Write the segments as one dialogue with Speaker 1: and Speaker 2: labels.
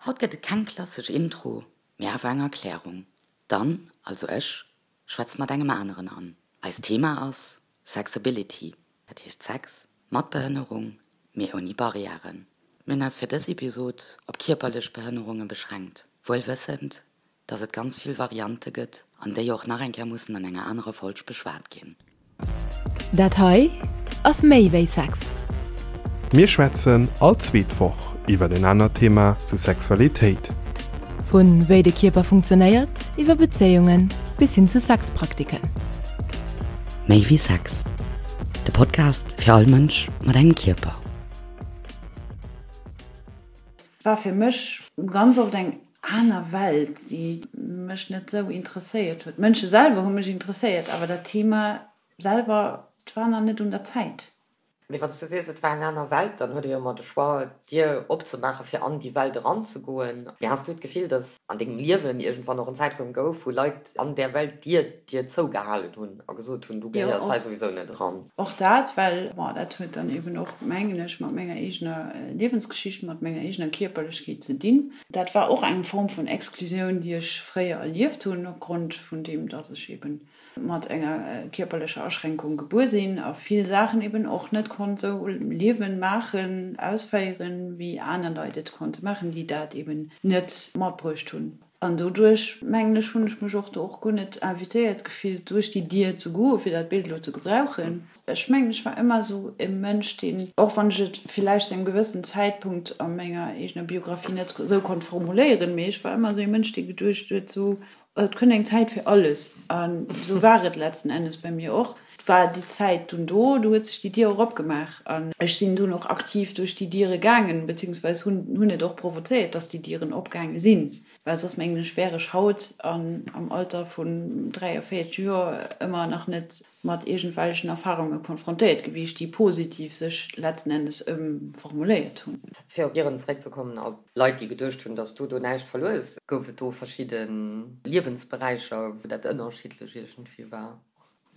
Speaker 1: Haut gëtt et keng klassesch Intro, mee awer eng Erklärung. D'Anne, also ech, schwätzt mat engem aneren Anne. Eist Thema ass Sexability, dat heescht Sex mat Behënnerung, mee ouni Barrièren. Mir hunn eis fir dës Episod op kierperlech Behënnerunge beschränkt, wuel wëssend, dass et ganz vill Variante gëtt an déi och nach eng Kéier mussen an enger anerer Folg beschwat ginn.
Speaker 2: Dat hei ass méi wéi Sex.
Speaker 3: Mir schwätzen all zweet Woch iwwer en anert Thema zu Sexualitéit.
Speaker 2: Vu wéi de Kierper funktionéiert, iwwer Bezéiungen bis hin zu Sexpraktiken.
Speaker 1: Méi wéi Sex, de Podcast fir all Mënsch mat engem Kierper.
Speaker 4: War fir mech ganz oft eng aner Welt, déi mech net sou interesséiert huet. D'Mënsche selwer hu mech interesséiert, awer dat Thema selwer, et war nach net un der Zäit.
Speaker 5: Mee wann s du sees, et war eng aner Welt, dann huet ee jo ëmmer de Choix, d'Dier opzemaachen, fir an déi Welt eranzegoen. Mee has du d'Gefill, datt an dengem Liewen iergendwann och en Zäitraum gouf, wou Leit an där Welt d'Dier dir zougehalen hunn a gesot hunn, du gehéiers hei souwisou net eran?
Speaker 4: Och dat, well, bon, dat huet dann eben och, mengen ech, mat menger eegener Liewensgeschicht, mat menger eegener Kierperlechkeet ze dinn. Dat war och eng Form vun Exklusioun, déi ech fréier erlieft hunn, opgrond vun deem, dass ech eben mat enger kierperlecher Aschränkung gebuer sinn a vill Saachen eben och net konnt esou liewen, maachen, ausféieren, wéi aner Leit et konnte maachen, déi dat eben net matbruecht hunn. An doduerch, mengen ech, hunn ech mech och do och guer net invitéiert gefillt, duerch déi Dier ze goen, fir dat Bild elo ze gebrauchen. Ech mengen, ech war ëmmer esou e Mënsch, deen, och wann ech et villäicht zu engem gewëssen Zäitpunkt a menger eegener Biografie net esou konnt formuléieren, mee ech war ëmmer esou e Mënsch, dee geduecht huet, esou, et kënnt eng Zäit fir alles. An esou war et letzten Endes bei mir och. Et war déi Zäit dunn do, do huet sech déi Dier och opgemaach an ech sinn dunn och aktiv duerch déi Diere gaangen, beziehungsweise hunn hunn et och provozéiert, dass déi Dieren opgaange sinn, well soss, mengen ech, wär ech haut an am Alter vun 43 Joer ëmmer nach net mat iergendwellechen Erfarunge konfrontéiert gewiescht, déi positiv sech letzten Endes ëmformuléiert hunn.
Speaker 5: Fir op Dieren zeréckzekommen, op Leit, déi geduecht hunn, datt s du do näischt verluer hues, gouf et do verschidde Liewensberäicher, wou dat ënnerschiddlech iergendwéi war?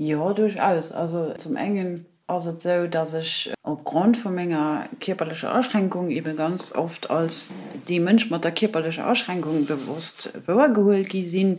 Speaker 4: Jo, duerchaus. Also zum engen ass et esou, datt ech opgrond vu menger kierperlecher Aschränkung ebe ganz oft als dee Mënsch mat der kierperlecher Aschränkung bewosst wouergehuel gi sinn,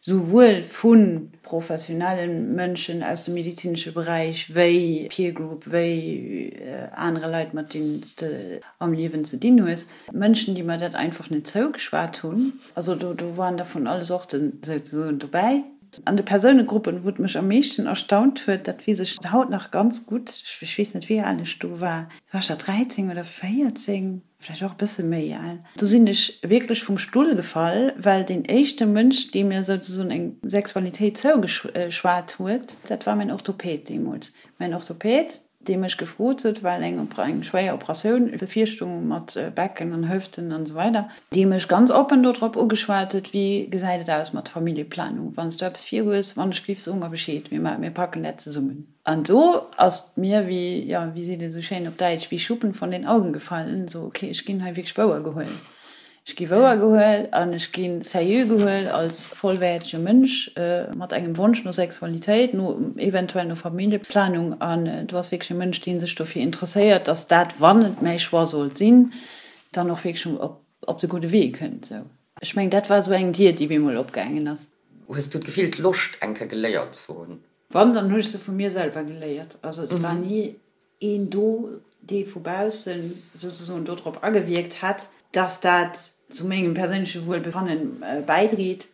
Speaker 4: souwuel vu professionelle Mënschen aus dem medezinesche Beräich wéi Peer Group, wéi anere Leit, mat deenen s de am Liewen ze dinn hues. Mënschen, déi mer dat einfach net zougeschwat hunn. Also do do waren der vun alle Sorten souzesoen dobäi. An de Persounegruppen, wou et mech am meeschten erstaunt huet, dat weess ech haut nach ganz gutt, ech weess net, wéi al ech do war, war ech da 13 oder 14? vläicht och e bësse méi al, do sinn ech wierklech vum Stull gefall, well deen éischte Mënsch, dee mir souzesoen eng Sexualitéit zougeschwat huet, dat war mäin Orthopäd deemools. Mäin Orthopäd, dee mech gefrot huet, well eng eng schwéier Operatioun bevirstung mat Becken an Hëften an esou weider, dee mech ganz oppen dodrop ugeschwat huet, Wéi gesäit et aus mat Familljeplanung? Wann s du eppes virhues, wann ech géif, so mer Bescheed, mir packen dat zesummen. An do ass mir wéi, jo, wéi seet een esou schéin op Däitsch, wie Schuppen von den Augen gefallen, esou, okay, ech ginn hei wierklech wouer gehuel. Ech gi wouer gehuel an ech gi seriö gehuel als vollwäertege Mënsch mat engem Wonsch no Sexualitéit, no eventuell no Familljeplanung. An do ass wierklech e Mënsch, dee sech dofir interesséiert, dass dat, wann et mäi Choix sollt sinn, dann och wierklech op de gudde Wee kënnt. Esou, ech mengen, dat war esou eng Dier, déi bemol opgaangen ass.
Speaker 5: Hues du d'Gefill, d'Loscht eng Kéier geléiert ze hunn?
Speaker 4: Wann, dann hu ech se vu mir selwer geléiert. Also et war ni een do, dee vu baussen souzesoen dodrop agewierkt hätt, dass dat zu mengem perséinleche Wuelbefanne bäidréit.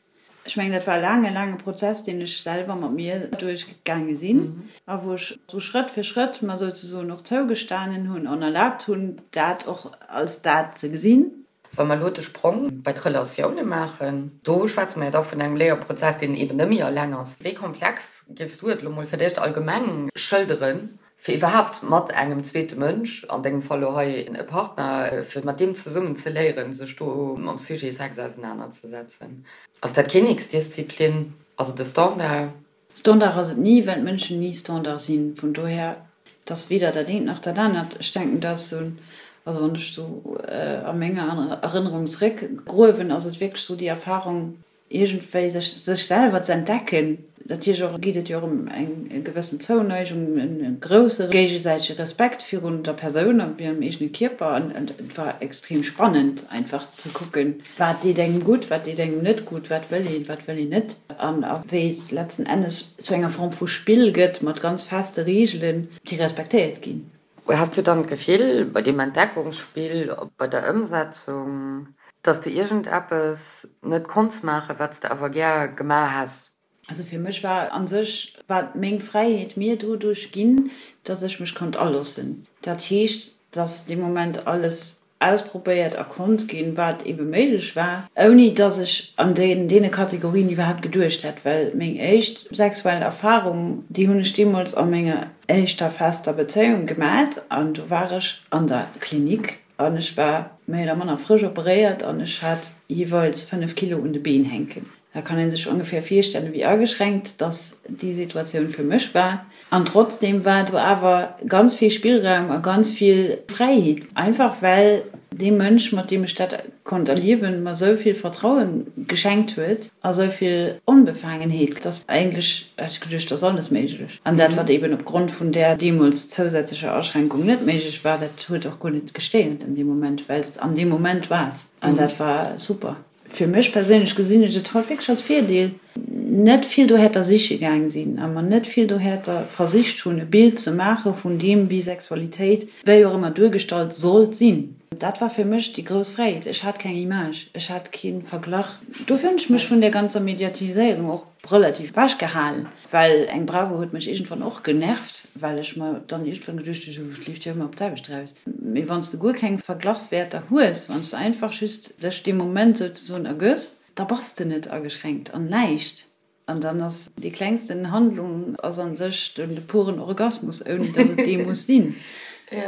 Speaker 4: Ech mengen, dat war e laange, laange Prozess, deen ech selwer mat mir duerchgaange sinn a wou ech sou Schrëtt fir Schrëtt mer souzesoen och zougestanen hunn an erlaabt hunn, dat och als dat ze gesinn.
Speaker 5: Wa mer elo de Sprong bei d'Relatioune maachen, do schwätze mer jo da vun engem Léierprozess, deen eben net méi eleng ass. Wéi komplex géifs du et elo mol fir d'éischt allgemeng schëlderen, fir iwwerhaapt mat engem zweete Mënsch, an dengem Fall elo hei e Partner, fir mat deem zesummen ze léieren, sech do mam Sujet Sex ausenanerzesetzen? Ass dat Kinneksdisziplin? Ass et e Standard?
Speaker 4: Standard ass et ni, well d'Mënschen ni Standard sinn. Vun dohier, et ass weder dat eent nach dat anert. Ech denken, dat ass esou, also wann ech esou a menger Erënnerung zeréckgruewen, ass et wierklech esou déi Erfahrung, iergendwéi sech sech selwer ze entdecken. Natierlech och geet et jo och ëm eng gewëssen Zouneigung, e grousse géigesäitege Respekt virun der Persoun a virum eegene Kierper. An et war extrem spannend einfach ze kucken, wat deet engem gutt, wat deet engem net gutt, wat wëll een, wat wëll een net. An a wéi et letzten Endes zu enger Form vu Spill gëtt mat ganz feste Reegelen, déi respektéiert ginn.
Speaker 5: Has du dann d'Gefill bei deem Entdeckungsspill, bei der Ëmsetzung, dass du iergendeppes net konns maachen, wat s de awer gär gemaach häss?
Speaker 4: Also fir mech war a sech war meng Fräiheet mir doduerch ginn, dass ech mech konnt aloossen. Dat heescht, dass dee Moment alles ausprobéiert a konnt ginn, wat ebe méiglech war, ouni dass ech an deene Kategorien iwwerhaapt geduecht hätt, well meng éischt sexuell Erfarung, déi hunn ech deemools a menger éischter fester Bezéiung gemat an do war ech an der Klinik an ech war méi oder manner frësch operéiert an ech hat jeeweils 5 Kilo un de Been hänken. Da kann ee sech ongeféier virstellen, wéi ageschränkt dass déi Situatioun fir mech war. An trotzdem war do awer ganz vill Spillraum a ganz vill Fräiheet, einfach well dee Mënsch, mat deem ech dat konnt erliewen, mer esou vill Vertraue geschenkt huet a esou vill Onbefaangenheet, dass eigentlech, hat ech geduecht, ass alles méiglech. An dat, wat eben opgrond vun där deemools zousätzlecher Aschränkung net méiglech war, dat huet och guer net gestéiert an deem Moment, well s de an deem Moment waars. An dat war super. Fir mech perséinlech gesinn ech et haut wierklech als Virdeel, net vill dohäerter siche gaang sinn a mer net vill dohäerter versicht hunn, e Bild ze maache vun deem, wéi Sexualitéit, wéi och ëmmer duergestallt sollt sinn. Dat war fir mech déi grouss Fräiheet. Ech hat keng Image, ech hat kee Verglach. Dofir hunn ech mech vun där ganzer Mediatiséierung och relativ ewech gehalen, well eng Bravo huet mech iergendwann och genervt, well ech mer dann iergendwann geduecht hunn, et leeft jo ëmmer op d'selwecht eraus. Mee wann s de guer keng Verglachswäerter hues, wann s de einfach just dech deem Moment souzesoen ergëss, da bass de net ageschränkt an näischt. An dann ass déi klengsten Handlung ass a sech de puren Orgasmus, ouni datt et dee muss sinn.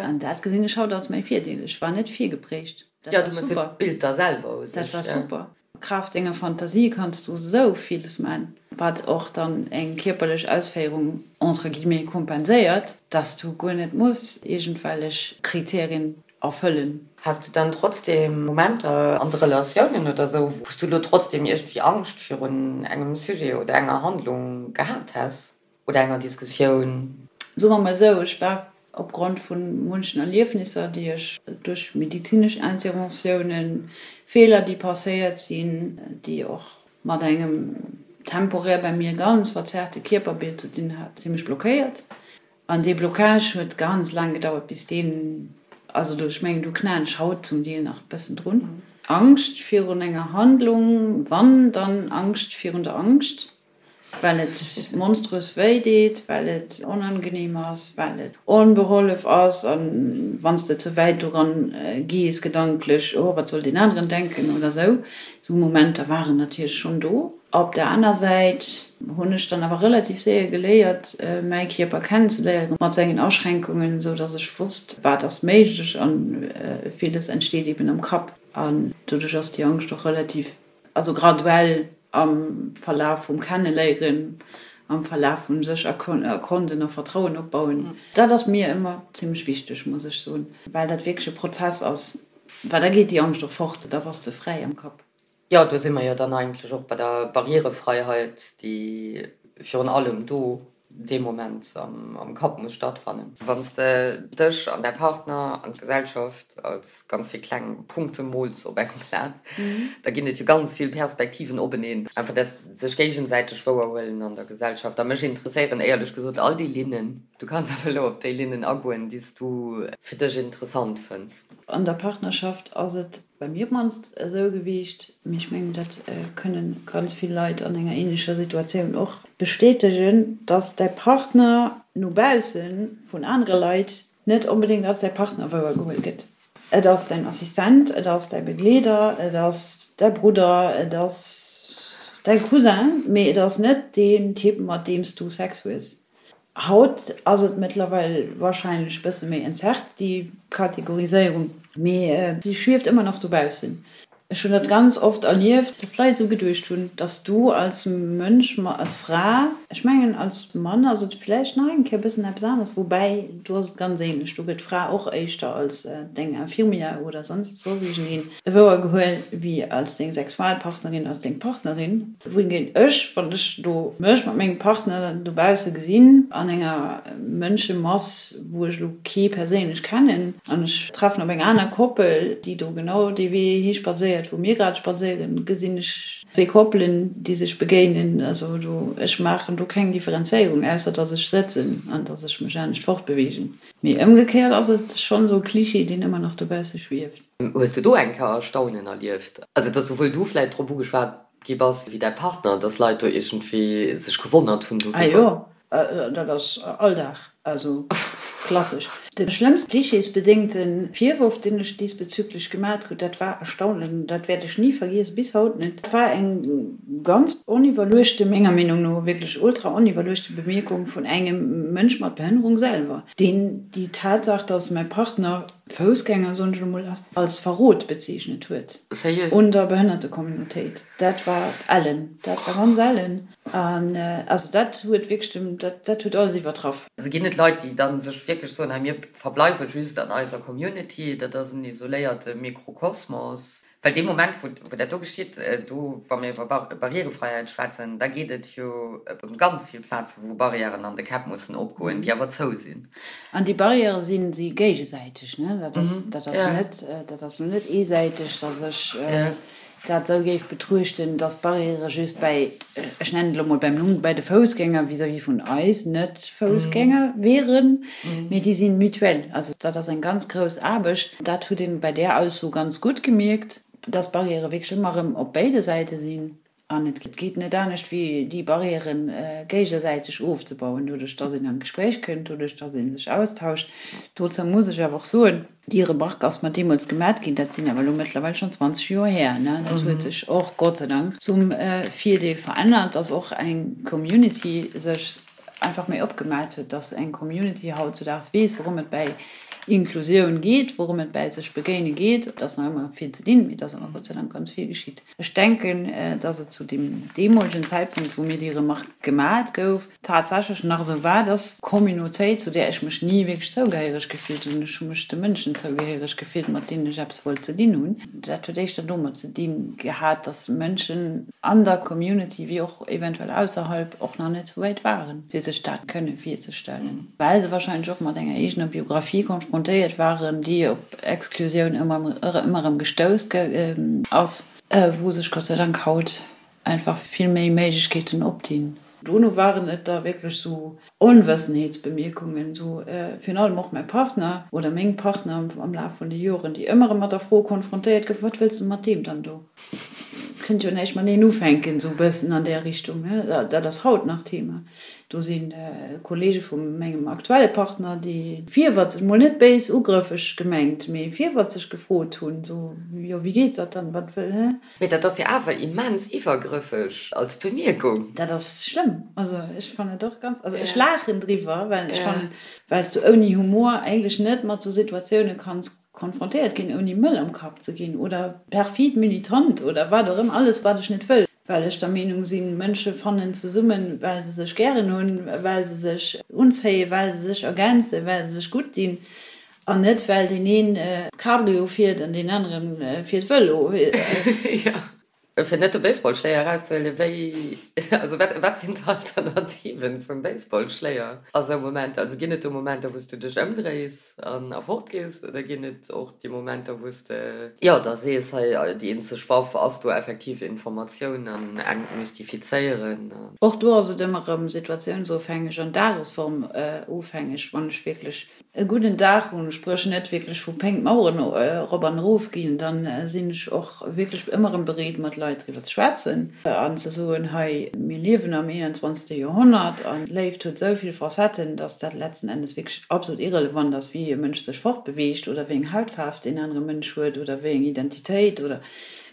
Speaker 4: An dat gesinn ech haut als mäi Virdeel. Ech war net virgeprägt. Dat
Speaker 5: war super. D'Bild da selwer u
Speaker 4: sech. Dat war super. Kraaft denger Fantasie kanns du sou villes man, wat och dann eng kierperlech Ausféierung entre guillemets kompenséiert, dass du guer net muss iergendwellech Kriterien erfëllen.
Speaker 5: Has du dann trotzdem Momenter an de Relatiounen oder sou, wou s du lo trotzdem iergendwéi Angscht virun engem Sujet oder enger Handlung gehat häss? Oder enger Diskussioun?
Speaker 4: Soe mer mol esou, ech war opgrond vu munchen Erliefnisser, déi ech duerch medizinesch Interventiounen, Feeler, déi passéiert sinn, déi och mat engem temporär bei mir ganz verzerrte Kierperbild ze dinn hat, zimmlech blockéiert. An dee Blocage huet ganz laang gedauert, bis deen, also do, ech mengen, do knaen ech haut zum Deel nach e bëssen drun. Angscht virun enger Handlung, wann, dann Angscht virun der Angscht. Well et monströs wéi deet, well et onangenehm ass, well et onbehollef ass an wann s de ze wäit doran gees gedanklech, oh wat soll deen aneren denken oder sou. Sou Momenter waren natierlech schonn do. Op der aner Säit hunn ech dann awer relativ séier geléiert mäi Kierper kennenzeléieren mat sengen Aschränkungen, sou dass ech wosst wat ass méiglech an villes entsteet eben am Kapp an doduerch ass déi Angscht och relativ Also graduell am Verlaf vum Kenneléieren, am Verlaf vum sech erkonden a Vertrauen opbauen. Dat ass mir ëmmer zimmlech wichteg, muss ech soen, well dat wierklech e Prozess ass, well da geet déi Angscht och fort, da bass de fräi am Kapp.
Speaker 5: Jo, do si mer jo dann eigentlech och bei der Barrierefreiheit, déi virun allem do dee Moment am Kapp muss stattfannen. Wann s de dech an däi Partner an d'Gesellschaft als ganz vill kleng Punkte mools op engem Plat, da ginn et jo ganz vill Perspektiven openeen. Einfach dat sech géigesäiteg wouerhuelen an der Gesellschaft. A mech interesséieren éierlech gesot all déi Linnen. Du kanns awer elo op déi Linnen agoen, déi s du fir dech interessant fënns.
Speaker 4: An der Partnerschaft ass et bei mir op d'mannst esou gewiescht, mee ech mengen, dat kënne ganz vill Leit an enger ähnlecher Situatioun och bestätegen, dass däi Partner no bausse vun anere Leit net onbedéngt als däi Partner wouergeholl gëtt. Et ass däin Assistent, et ass däi Begleeder, et ass däi Brudder, et ass däi Cousin, mee et ass net deen Typ, mat deem s du Sex hues. Haut ass et mëttlerweil wahrscheinlech bësse méi entzerrt, déi Kategoriséierung, mee si schwieft ëmmer nach dobaussen. Ech hunn dat ganz oft erlieft, dass d'Leit esou geduecht hunn, dass du als Mënsch, als Fra, ech mengen als Mann ass et vläicht nach eng Kéier e bëssen eppes anescht, woubäi do ass et ganz ähnlech, do gëtt d'Fra och éischter als deng Infirmière oder soss iergendeen wouergehuel wéi als deng Sexualpartnerin, als deng Partnerin. Wohingehend ech, wann ech do mech mat mengem Partner dobausse gesinn, an enger Mënschemass, wou ech elo kee perséinlech kennen, an ech treffen op eng aner Koppel, déi do genau dee Wee hi spadséiert, wou mir grad spadséieren, gesinn ech zwee Koppelen, déi sech begéinen. Also do, ech maachen do keng Differenzéierung, ausser dass ech sëtzen an dass ech mech anescht fortbeweegen. Mee ëmgekéiert ass et schonn esou e Klischee, deen ëmmer nach dobausse schwieft.
Speaker 5: Hues du do eng Kéier Erstaunen erlieft? Also dass souwuel du vläit drop ugeschwat gi bass wéi däi Partner, dass Leit do iergendwéi sech gewonnert hunn
Speaker 4: doriwwer? Ah jo, dat ass Alldag, also klassesch. De schlëmmste klischeesbedéngte Virworf, deen ech diesbezüglech gemat krut, dat war erstaunlech, dat wäert ech ni vergiessen, bis haut net, dat war eng ganz oniwwerluechte, menger Meenung no wierklech ultra oniwwerluechte Bemierkung vun engem Mënsch mat Behënnerung selwer, deen déi Tatsaach, dass mäi Partner Foussgänger, soen ech elo mol, als Verrot bezeechnet huet un der Behënnertecommunautéit. Dat war ellen, dat war ganz ellen. An also dat huet wierklech dem, dat, dat huet alles iwwertraff.
Speaker 5: Also ginn et Leit, déi da sech wierklech soen, hei mir verbleiwe just an eiser Community, dat ass en isoléierte Mikrokosmos. Well dee Moment, wou, wou dat do geschitt, do, wa mir iwwer Barrièrefreiheit schwätzen, da geet et jo ëm ganz vill Plazen, wou Barrièren an de Käpp mussen opgoen, déi awer zou sinn.
Speaker 4: An déi Barrièrë sinn si géigesäiteg, ne? Dat ass, dat ass net, dat ass lo net eesäiteg, dass ech dat esou géif betruechten, dass d'Barrièrë just bäi, ech nennen et elo mol beim Numm, bäi de Foussgänger vis-à-vis vun eis Net-Foussgänger wieren, mee déi si mutuel. Also dat ass eng ganz grouss Aarbecht. Dat huet een bei där Ausso ganz gutt gemierkt, dass d'Barrièrë wierklech ëmmer erëm op béide Säite sinn. An et geet net anescht, wéi déi Barrièrë géigesäiteg ofzebauen, doduerch dass een an d'Gespréich kënnt, doduerch dass ee sech austauscht. Dozou muss ech awer och soen, Déi Remarque ass mer deemools gemat ginn, dat sinn awer elo mëttlerweil schonn 20 Joer här, ne? Dat huet sech och, Gott sei Dank, zum Virdeel verännert, dass och eng Community sech einfach méi opgemat huet, dass eng Community hautzudaags weess, wourëm et bäi Inklusioun geet, wourëm et bäi sech begéine geet. Et ass nach ëmmer vill ze dinn, mee et ass awer Gott sei Dank ganz vill geschitt. Ech denken, dass et zu deem deemolegen Zäitpunkt, wou mir déi Remarque gemat gouf, tatsächlech nach esou war, dass d'Communautéit, zu där ech mech ni wierklech zougehéiereg gefillt hunn, ech hu mech de Mënschen zougehéiereg gefillt, mat deenen ech eppes wollt ze dinn hunn, dat huet éischter domat ze dinn gehat, dass Mënschen an der Community wéi och eventuell ausserhalb och nach net esou wäit waren, fir sech dat kënne virzestellen, well se wahrscheinlech och mat enger eegener Biographie konfrontéiert waren, déi op Exklusioun ëmmer erëm gestouss ass, wou sech Gott sei Dank haut einfach vill méi Méiglechkeeten opdinn. Dono waren et da wierklech sou Onwëssenheetsbemierkungen, sou virun allem och mäi Partner oder meng Partner am Laf vun de Joren, déi ëmmer erëm mat der Fro konfrontéiert goufen, Wat wëlls de mat deem dann do? Kënnt jo näischt mateneen ufänken, sou e bëssen an där Richtung, ne? Dat ass haut nach Thema. Do si Kollege vu mengem aktuelle Partner, déi virwëtzeg, mol net béis ugrëffeg gemengt, mee virwëtzeg gefrot hunn, sou, jo, wéi geet dat dann, wat wëll, hä?
Speaker 5: Mee dat ass jo awer immens iwwergrëffeg als Bemierkung.
Speaker 4: Dat ass schlëmm. Also ech fannen et och ganz, also ech laachen driwwer, well ech fannen, well s du ouni Humor eigentlech net mat sou Situatioune kanns konfrontéiert ginn, ouni mëll am Kapp ze ginn oder perfid militant oder wat och ëmmer, alles wat ech net wëll. Well ech der Meenung sinn, Mënsche fannen zesummen, well se sech gären hunn, well se sech unzéien, well se sech ergänzen, well se sech gutt dinn, an net well deen een Cabrio fiert an deen anere fiert Vëlo.
Speaker 5: Fir net de Baseballschléier erauszehuelen, wéi, also wat, wat sinn d'Alternativen zum Baseballschléier a sou Momenter? Also ginn et do Momenter, wou s du dech ëmdréis an a fort gees, oder ginn et och déi Momenter, wou s de, jo, da sees, hei, déi eenzeg Waff ass do effektiv Informatioun an entmystifizéieren?
Speaker 4: Och do ass et ëmmer erëm situatiounsofhängeg an dagesformofhängeg. Wann ech wierklech e gudden Dag hunn, spréch net wierklech vu Péng d'Maueren erop an erof ginn, dann sinn ech och wierklech ëmmer erëm bereet mat Leit driwwer ze schwätzen an ze soen, hei mir liewen am 21. Joerhonnert an d'Léift huet esou vill Facetten, dass dat letzten Endes wierklech absolut irrelevant ass, wéi e Mënsch sech fortbeweegt oder wéi eng Hautfaarf deen anere Mënsch huet oder wéi eng Identitéit oder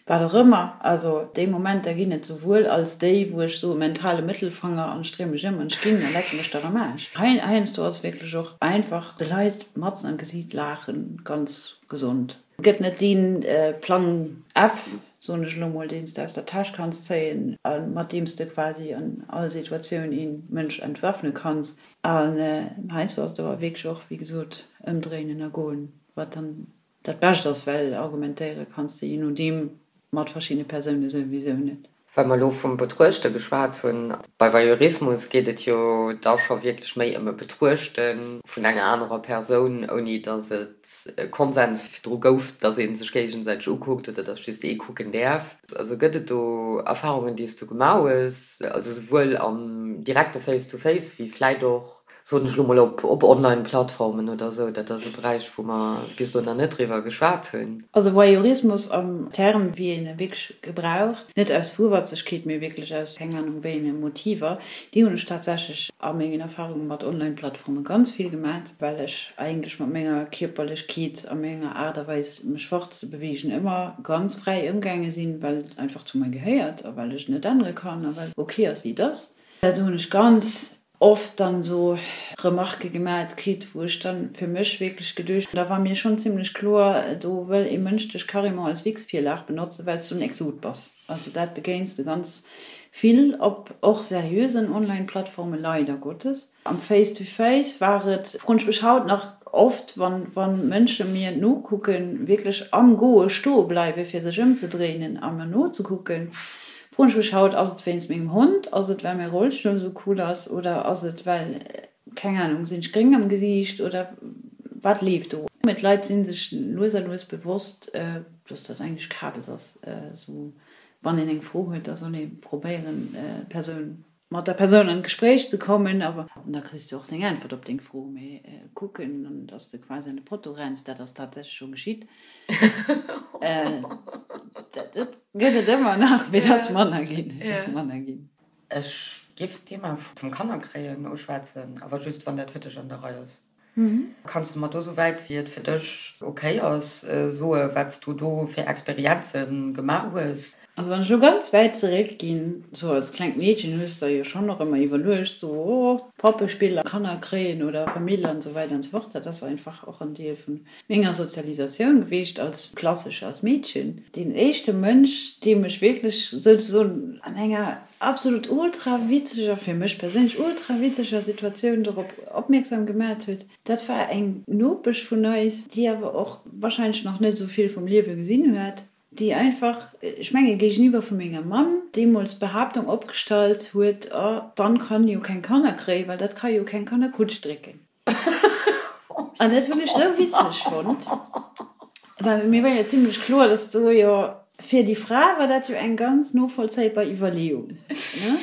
Speaker 4: Wat och ëmmer, also déi Momenter ginn et souwuel als déi, wou ech soe mentale Mëttelfanger an ech dréi mech ëm an ech ginn a leck mech der am Aarsch. Heiansdo ass wierklech och einfach de Leit matzen am Gesiit laachen ganz gesond. Et gëtt net dee Plang F. Soen ech elo mol, deen s de aus der Täsch kanns zéien a mat deem s de quasi an all Situatioun ee Mënsch entwaffne kanns. An heiansdo ass et awer wierklech och, wéi gesot, ëmdréinen a goen, wat dann dat Bescht ass, well argumentéiere kanns de je nodeem mat verschiddene Persoune souwisou net.
Speaker 5: Well mer elo vum Betruechte geschwat hunn, bei Voyeurismus geet et jo da scho wierklech méi ëm e Betruechte vun enger anerer Persoun, ouni datt et e Konsens virdru gouf, datt ee sech géigesäiteg ukuckt oder datt just ee kucken däerf. Also gëtt et do Erfarungen, déi s du gemaach hues, also souwuel am direkte Face-to-Face wéi vläit och soen ech elo mol, op Online-Plattformen oder esou, dat ass e Beräich, wou mer bis elo nach net driwwer geschwat hunn.
Speaker 4: Also Voyeurismus am Term, wéi een e wierklech gebraucht, net aus Fuerwatzegkeet, mee wierklech aus keng Ahnung wéi enge Motiver, déi hunn ech tatsächlech a mengen Erfarunge mat Online-Plattforme ganz vill gemat, well ech eigentlech mat menger Kierperlechkeet a menger Aart a Weis, mech fortzebeweegen, ëmmer ganz fräi ëmgaange sinn, well et einfach zu mer gehéiert a well ech et net ännere kann a well et ok ass, wéi et ass. Do hunn ech ganz oft dann esou Remarquë gemat kritt, wou ech dann fir mech wierklech geduecht hunn, da war mir schonn zimlech kloer, do wëll ee Mënsch dech carrément als Wichsvirlag benotzen, well s du en Exot bass. Also dat begéins de ganz vill op och seriösen Online-Plattformen, leider Gottes. Am Face-to-Face war et, froen ech mech haut nach oft, wann wann Mënsche mir nokucken, wierklech am Goe stoe bleiwe fir sech ëmzedréinen a mer nozekucken, Froen ech mech haut, ass et wéinst mengem Hond, ass et well mäi Rollstull esou cool ass oder ass et well, keng Ahnung, sinn ech gréng am Gesiicht oder wat leeft do? Mee d'Leit si sech lues a lues bewosst, dass dat eigentlech Kabes ass. Esou wann een eng Fro huet, da soll ee probéieren d'Persoun, mat der Persoun an d'Gespréich ze kommen. Awer da kriss de och deng Äntwert op deng Fro. Mee kucken an dass de quasi an de Potto renns, dat ass tatsächlech scho geschitt. Dat gëtt et ëmmer nach, mee et ass manner ginn. Et ass manner ginn.
Speaker 5: Ech géif d'Thema vum Kannerkréien uschwätzen, awer just wann dat fir dech an der Rei ass. Kanns de mer do, souwäit wéi et fir dech ok ass, soe wat s du do fir Experienze gemaach hues?
Speaker 4: Also wann ech elo ganz wäit zeréck ginn, sou als klengt Meedchen hues der jo schonn och ëmmer iwwerluecht, sou oh Poppespiller, Kanner kréien oder Famill an esou weider an esou fort. Dat ass einfach och en Deel vun menger Sozialisatioun gewiescht als klassesch als Meedchen. Deen éischte Mënsch, dee mech wierklech souzesoen an enger absolut ultra witzeger, fir mech perséinlech ultra witzeger Situatioun dorop opmierksam gemat huet, dat war eng Nopesch vun eis, déi awer och wahrscheinlech nach net esou vill vum Liewe gesinn huet, déi einfach, ech menge géigeniwwer vu menger Mamm, deemools d'Behaaptung opgestallt huet, Oh, d'Anne kann jo keng Kanner kréien, well dat ka jo keng Kannerkutsch drécken. An dat hunn ech sou witzeg fonnt, well mir war jo zimlech kloer, dass do jo fir déi Fra war dat jo eng ganz novollzéibar Iwwerleeung, ne?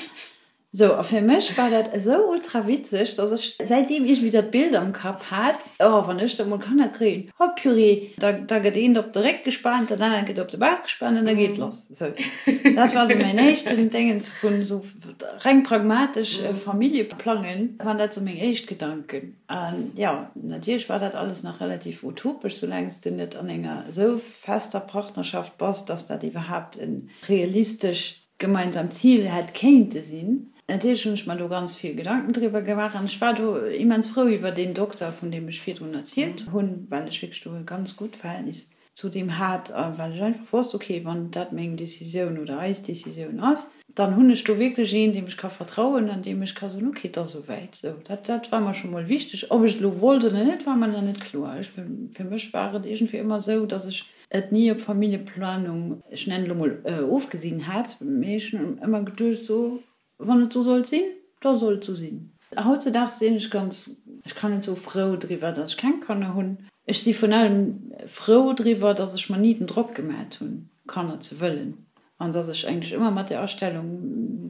Speaker 4: Sou, a fir mech war dat esou ultra witzeg, dass ech säitdeem iergendwéi dat Bild am Kapp hat, oh, wann ech da mol Kanner kréien, oh purée, da, da gëtt eent op de Réck gespaant, dat anert gëtt op de Bauch gespaant an da geet lass. Sou, dat war sou mäin éischten Déngens vun sou reng pragmatesch Familljeplangen, waren dat sou meng éischt Gedanken. An jo, natierlech war dat alles nach relativ utopesch, soulaang s de net an enger esou fester Partnerschaft bass, dass dat iwwerhaapt e realistescht gemeinsamt Zil hätt kéinte sinn. Natierlech hunn ech mer do ganz vill Gedanken driwwer gemaach an ech war do immens frou iwwer deen Dokter, vun deem ech virdrun erzielt hunn, well ech wierklech do e ganz gutt Verhältnis zu deem hat a well ech einfach wosst, ok, wann dat meng Decisioun oder eis Decisioun ass, dann hunn ech do wierklech een, deem ech ka vertrauen an deem ech ka soen, ok, et ass esouwäit. Sou, dat, dat war mer scho mol wichteg. Ob ech et elo wollt oder net, war mer nach net kloer. Ech, fir mech war et iergendwéi ëmmer esou, datt ech et ni op Familljeplanung, ech nennen et elo mol, ofgesinn hat, mee ech hunn ëmmer geduecht, sou, Wann et sou sollt sinn, da soll et sou sinn. Hautzedaags sinn ech ganz, ech kann net soe frou driwwer, datt ech keng Kanner hunn. Ech si vun allem frou driwwer, datt ech mer ni den Drock gemat hunn, Kanner ze wëllen. An datt ech eigentlech ëmmer mat där Astellung,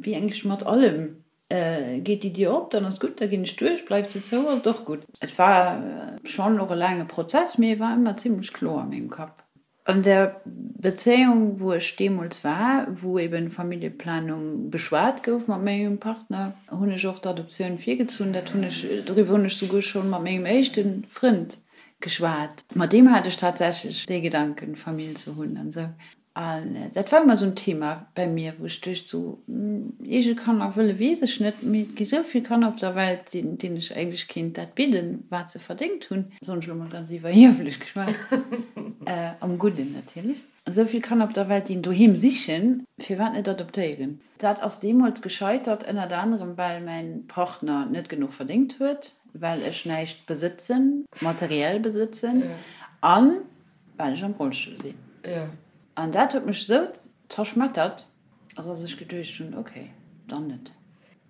Speaker 4: wéi eigentlech mat allem, geet déi Dier op, dann ass gutt, da ginn ech duerch, bleift se zou, ass et och gutt. Et war schonn och e laange Prozess, mee e war ëmmer zimlech kloer a mengem Kapp. An der Bezéiung, wou ech deemools war, wou eben Familljeplanung beschwat gouf mat mengem Partner, hunn ech och d'Adoptioun virgezunn. Dat hunn ech, doriwwer hunn ech souguer schonn mat mengem éischte Frënd geschwat. Mat deem hat ech tatsächlech dee Gedanken, Famill ze hunn an esou. An dat war ëmmer esou en Thema bei mir, wou ech duecht, sou, eege Kanner wëlle weess ech net, mee et gi sou vill Kanner op der Welt, deenen ech eigentlech kéint dat bidden, wat se verdéngt hunn, soen ech elo mol ganz iwwerhieflech geschwat, am Gudden natierlech, esou vill Kanner op der Welt, déi en Doheem sichen, firwat net adoptéieren? Dat ass deemools gescheitert, ënnert anerem well mäin Partner net genuch verdéngt huet, well ech näischt besëtzen, materiell besëtzen, an well ech am Rollstull sinn. An dat huet mech esou zerschmettert, dass ech geduecht hunn, ok, dann net.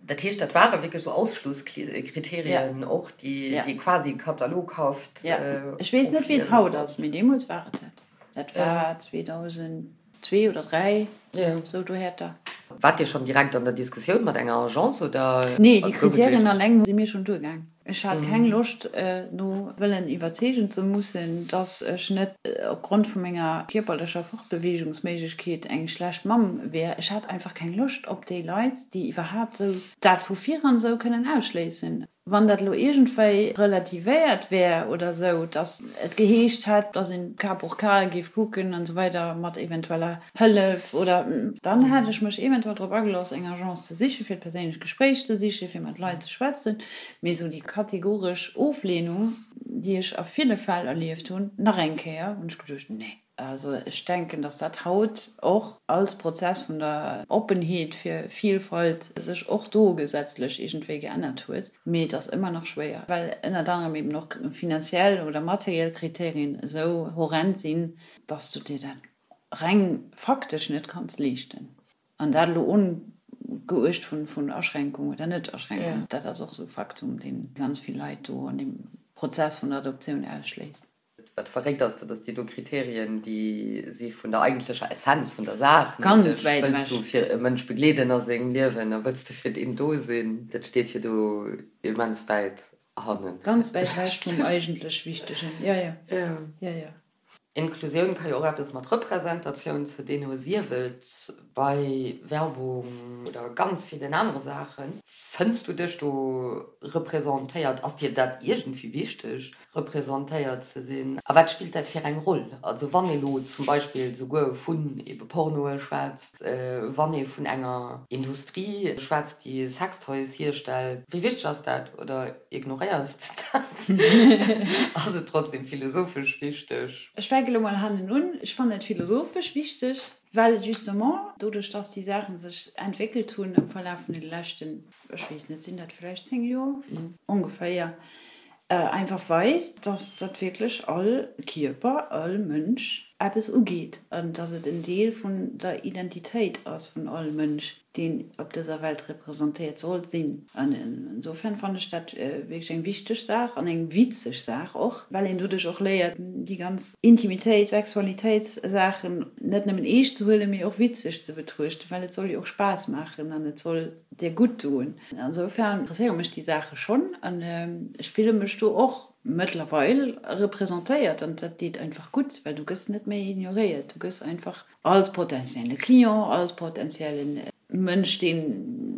Speaker 5: Dat heescht, dat ware wierklech esou Ausschlusskriterien och, déi quasi kataloghaft.
Speaker 4: Jo, ech weess net, wéi et haut ass, mee deemools war et dat. Dat war 2002 oder 3, esou dohäerter.
Speaker 5: Waart Dir schonn direkt an der Diskussioun mat enger Agence oder?
Speaker 4: Nee, déi Kriterien alleng si mir schonn duergaang. Ech hat keng Loscht, no wëllen iwwerzeegen ze mussen, dass ech net opgrond vu menger kierperlecher Fortbeweegungsméiglechkeet eng schlecht Mamm wär. Ech hat einfach keng Loscht op déi Leit, déi iwwerhaapt esou dat vu viran esou kënnen ausschléissen. Wann dat elo iergendwéi relativéiert wär oder esou, dass et geheescht hätt, dass een cas pour cas géif kucken an esou weider mat eventueller Hëllef oder, dann hätt ech mech eventuell drop agelooss, eng Agence ze sichen, fir d'perséinlech Gespréich ze sichen, fir mat Leit ze schwätzen. Mee esou déi kategoresch Oflehnung, déi ech a ville Fäll erlieft hunn, nach eng Kéier, hunn ech geduecht, nee. Also ech denken, datt dat haut och als Prozess vun der Oppenheet fir Vielfalt sech och do gesetzlech iergendwéi geännert huet. Mee et ass ëmmer nach schwéier, well ënnert anerem eben och finanziell oder materiell Kriterien esou horrend sinn, datt s du dir dat reng faktesch net kanns leeschten. An dat elo ongeuecht vun Aschränkung oder Net-Aschränkung, dat ass och esou e Faktum, dee ganz vill Leit do an deem Prozess vun der Adoptioun ausschléisst.
Speaker 5: Wat verréckt ass, dat ass déi do Kriterien, déi si vun der eigentlecher Essenz vun der Saach, nämlech wëlls du fir e Mënsch begleeden a sengem Liewen a wëlls du fir deen do sinn, dat steet jo do immens wäit hannen.
Speaker 4: Ganz wäit ewech vum eigentlech Wichtegen, jo, jo, jo, jo.
Speaker 5: Inklusioun ka jo och eppes mat Representatioun ze dinn hu, sief et bei Werbung oder ganz villen anere Saachen. Fënns du dech do representéiert? Ass dir dat iergendwéi wichteg, representéiert ze sinn? A wat spillt dat fir eng Roll? Also wann ee lo zum Beispill souguer vun ebe Pornoe schwätzt, wann ee vun enger Industrie schwätzt, déi Sextoys hierstellt, wéi wichteg ass dat? Oder Ignoréiers de dat? Ass et trotzdem philosophesch wichteg?
Speaker 4: Ech fänke lo mol hannen un. Ech fannen et philosophesch wichteg, well justement doduerch, dass déi Saache sech entwéckelt hunn am Verlaf vun de leschten, ech weess net, sinn dat vläicht 10 Joer ongeféier, einfach weist, dass dat wierklech all Kierper, all Mënsch eppes ugeet an dass et en Deel vun der Identitéit ass vun all Mënsch. deen op dëser Welt representéiert soll sinn. An insofern fannen ech dat wierklech eng wichteg Saach an eng witzeg Saach och, well een doduerch och léiert, déi ganz Intimitéit, Sexualitéitssaachen net nëmmen eescht ze huelen, mee och witzeg ze betruechten, well et soll jo och Spaass maachen an et soll dir gutt doen. Insofern interesséiere mech déi Saache schonn an ech fille mech do och mëttlerweil representéiert an dat deet einfach gutt, well du gëss net méi ignoréiert, du gëss einfach Als potentielle Client, als potentielle Mënsch, dee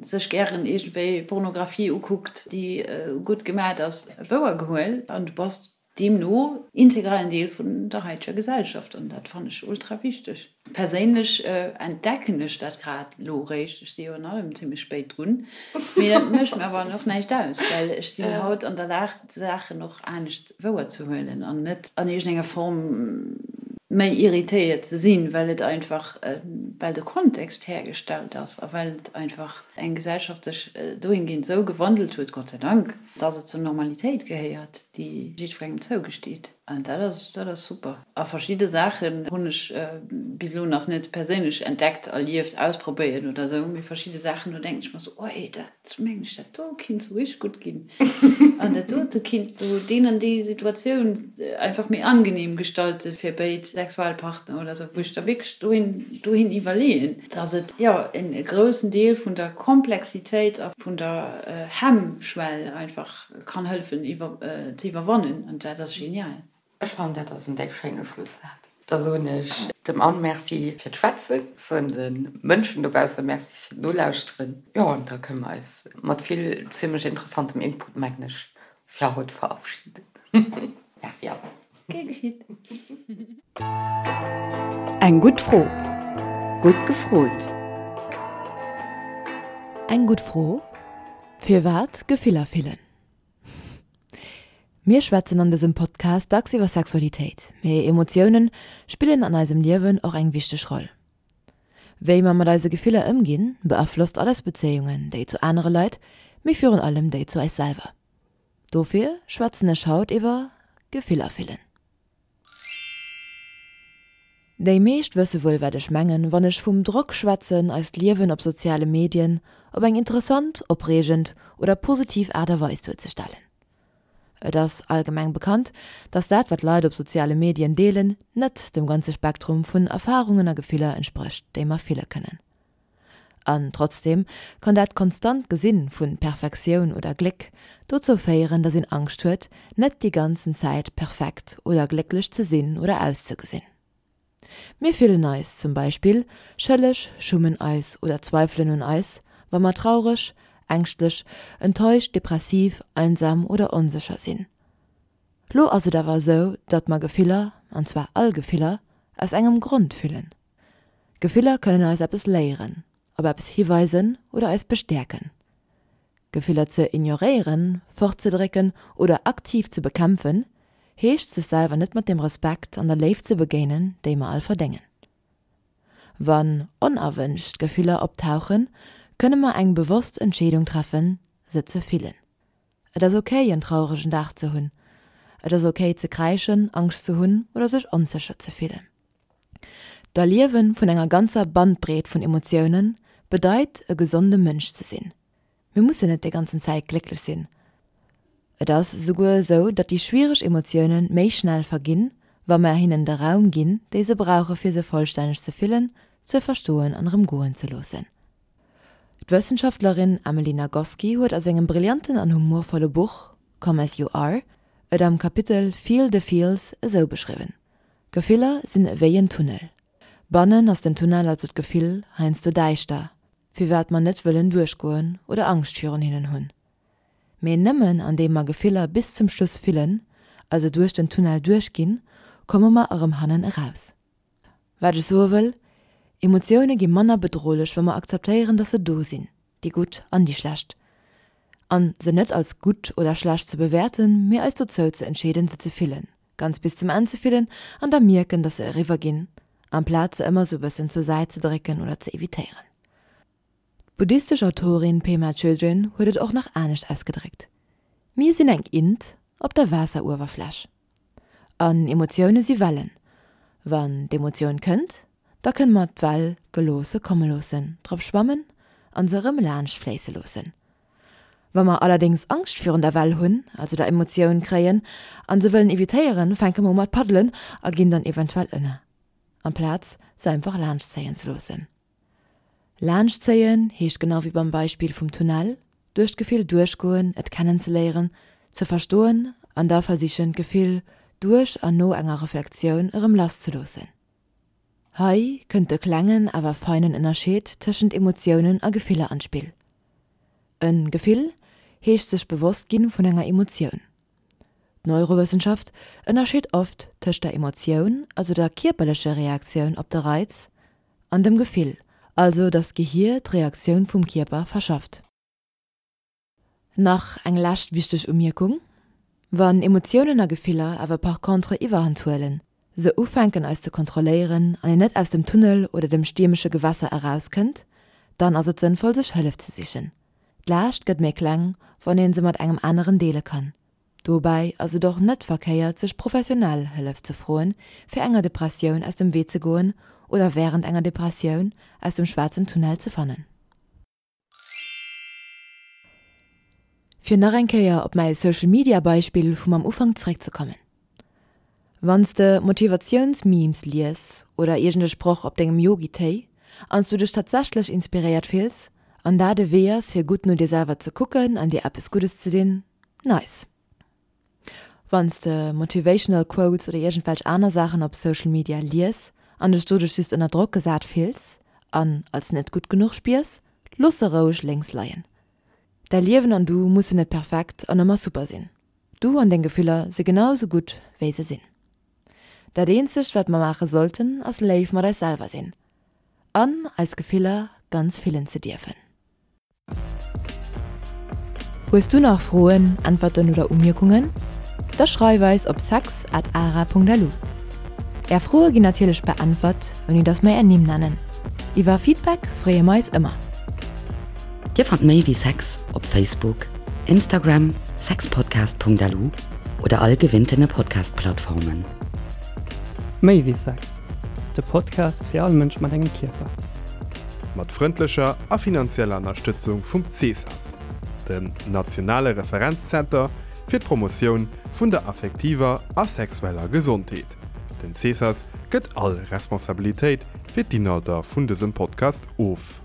Speaker 4: sech gären iergendwéi Pornografie ukuckt, déi gutt gemat ass, wouer gehuel an du bass deemno integralen Deel vun der haiteger Gesellschaft an dat fannen ech ultra wichteg. Perséinlech entdecken ech dat grad elo eréischt, ech si jo an allem zimmlech spéit drun, mee dat mécht mir awer och näischt aus, well ech sinn haut an der Lag d'Saachen och anescht wouer ze huelen an net an iergendenger Form méi irritéiert ze sinn, well et einfach, well de Kontext hergestallt ass a well et einfach eng Gesellschaft sech dohingehend esou gewandelt huet, Gott sei Dank, dass et zur Normalitéit gehéiert, déi jiddwerengem zougesteet. An dat ass, dat ass super. A verschidde Saachen hunn ech bis elo nach net perséinlech entdeckt, erlieft, ausprobéiert oder esou, mee verschidde Saachen, do denken ech mer esou, Oi, dat. Mengen ech, dat do kinnt sou richteg gutt ginn. An dat dote kinnt sou deen an déi Situatioun einfach méi angenehm gestalten fir béid Sexualpartner oder sou, wou ech da wierklech dohin, dohin iwwerleeën, dass et, jo, en groussen Deel vun der Komplexitéit a vun der Hemmschwell einfach kann hëllefen iwwer, ze iwwerwannen. An dat ass genial.
Speaker 5: Ech fannen dat ass en déck schéine Schlussaz. Da soen ech dem Anne Merci fir d'Schwätzen, soen de Mënschen dobausse Merci fir d'Nolauschteren. Jo, an da kënne mer eis mat vill zimmlech interessantem Input, mengen ech, fir haut verabschieden. Merci Anne.
Speaker 4: Gär geschitt.
Speaker 2: Eng gutt Fro.
Speaker 1: Gutt gefrot!
Speaker 2: Eng gutt Fro, Firwat Gefiller fillen? Mir schwätzen an dësem Podcast dacks iwwer Sexualitéit, mee Emotiounen spillen an eisem Liewen och eng wichteg Roll. Wéi mer mat eise Gefiller ëmginn, beaflosst all eis Bezéiungen, déi zu anere Leit, mee virun allem déi zu eis selwer. Dofir schwätzen ech haut iwwer Gefiller fillen. Déi meescht wësse wuel wat ech mengen, wann ech vum Drock schwätzen, eist Liewen op soziale Medien op eng interessant, opreegend oder positiv Aart a Weis duerzestellen. Et ass allgemeng bekannt, dass dat wat Leit op soziale Medien deelen, net dem ganze Spektrum vun Erfarungen a Gefiller entsprécht, déi mer fille kënnen. An trotzdeem kann dat konstant Gesinn vun Perfektioun oder Gléck dozou féieren, dass een Angscht huet, net déi ganzen Zäit perfekt oder glécklech ze sinn oder auszegesinn. Mir fillen eis zum Beispill schëlleg, schummen eis oder zweifelen un eis, wa mer traureg, ängschtlech, enttäuscht, depressiv, einsam oder onsécher sinn. Lo ass et awer esou, datt mer Gefiller, an zwar all Gefiller, aus engem Grond fillen. Gefiller kënnen eis eppes léieren, op eppes hiweisen oder eis bestäerken. Gefiller ze ignoréieren, fortzedrécken oder aktiv ze bekämpfen, heescht sech selwer net mat dem Respekt an der Léift ze begéinen, déi mer all verdéngen. Wann onerwënscht Gefiller optauchen, kënne mer eng bewosst Entscheedung treffen, se ze fillen. Et ass ok en trauregen Dag ze hunn. Et ass ok ze kräischen, Angscht ze hunn oder sech onsécher ze fillen. D'Erliewe vun enger ganzer Bandbreet vun Emotioune bedeit e gesonde Mënsch ze sinn. Mir mussen net déi ganzen Zäit glécklech sinn. Et ass esouguer esou, datt déi schwiereg Emotioune méi schnell verginn, wa mer hinnen de Raum ginn, déi se brauche fir se vollstänneg ze fillen, ze verstoen an erëm goen ze loossen. D'Wëssenschaftlerin Emily Nagoski huet a sengem brillanten an humorvolle Buch Come As You Are et am Kapitel Feel the Feels esou beschriwwen, Gefiller sinn ewéi en Tunnel. Bannen ass den Tunnel, also d'Gefill, heiansdo däischter, firwat mer net wëllen duerchgoen oder Angscht virun hinnen hunn. Mee nëmmen andeem mer Gefiller bis zum Schluss fillen, also duerch den Tunnel duerchginn, komme mer erëm hannen eraus. Wat ech soe wëll, Emotioune gi manner bedrohlech, wa mer akzeptéieren, dass se do sinn, déi gutt an déi schlecht. An se net als gutt oder schlecht ze bewäerten, mee eis dozou ze entscheeden, se ze fillen, ganz bis zum Enn ze fillen an da mierken, dass se eriwwer ginn, amplaz se ëmmer sou bëssen zur Säit ze drécken oder ze evitéieren. D'buddhistesch Autorin Pema Chödrön huet et och nach anescht ausgedréckt, Mir sinn eng Int op der Waasseruewerfläch. An Emotioune si Wellen. Wann d'Emotioun kënnt, da kënne mer d'Well geloosse komme loossen, drop schwammen a se erëm laanscht fléisse loossen. Wa mer allerdéngs Angscht virun der Well hunn, also der Emotioun kréien, a se wëllen evitéieren, fänke mer u mat paddelen a ginn dann eventuell ënner, amplaz se einfach laanscht zéien ze loossen. Laanschtzéien heescht genau wéi beim Beispill vum Tunnel, duerch d'Gefill duerchgoen, et kennenzeléieren, ze verstoen an da versichen d'Gefill duerch an no enger Reflektioun erëm lasszeloossen. Hei kënnt de klengen awer feinen Ënnerscheed tëschent Emotiounen a Gefiller an d'Spill. E Gefill heescht sech bewosst ginn vun enger Emotioun. D'Neurowëssenschaft ënnerscheet oft tëscht der Emotioun, also der kierperlecher Reaktioun op de Reiz, an dem Gefill, also datt d'Gehier d'Reaktioun vum Kierper verschafft. Nach eng lescht wichteg Umierkung, Wann Emotiounen a Gefiller awer par contre Iwwerhand huelen, se ufänken eis ze kontrolléieren an een net aus dem Tunnel oder dem stiermesche Gewässer erauskënnt, dann ass et sënnvoll sech Hëllef ze sichen. D'Laascht gëtt méi kleng, wann een se mat engem aneren deele kann. Dobäi ass et och net verkéiert sech professionell Hëllef ze froen, fir enger Depressioun aus dem Wee ze goen oder wärend enger Depressioun aus dem schwaarzen Tunnel ze fannen. Fir nach eng Kéier op mäi Social Media Beispill vum am Ufank zeréckzekommen. Wann s de Motivatiouns-Memes lies oder iergend e Sproch op dengem Yogi-Téi an s du dech tatsächlech inspiréiert fills an dat e Wee ass fir gutt no dir selwer ze kucken an dir eppes Guddes ze dinn, nice. Wann s de Motivational Quotes oder iergendwelch aner Saachen op Social Media lies an dech doduerch just ënner Drock gesat fills an als net gutt genuch spiers, looss se roueg lénks leien. Däi Liewen an du mussen net perfekt an ëmmer super sinn. Du an deng Gefiller si genau sou gutt wéi se sinn. Dat eenzegt wat mer maache sollten ass léif mat eis selwer sinn. An eis Gefiller ganz fillen ze dierfen. Hues du nach Froen, Äntwerten oder Umierkungen? Da schreif eis op sex at ara.lu. Är Froe ginn natierlech beäntwert, ouni dass mer är Nimm nennen. Iwwer Feedback freeë mer eis ëmmer.
Speaker 1: Dir fannt méi wéi Sex op Facebook, Instagram, sexpodcast.lu oder all gewinntene Podcast-Plattformen.
Speaker 6: Méi wéi Sex, de Podcast fir all Mënsch mat engem Kierper.
Speaker 3: Mat frëndlecher a finanzieller Ënnerstëtzung vum CESAS, dem nationale Referenzzenter fir d'Promotioun vun der affektiver a sexueller Gesondheet. Den CESAS gëtt all Responsabilitéit fir d'Inhalter vun dësem Podcast of.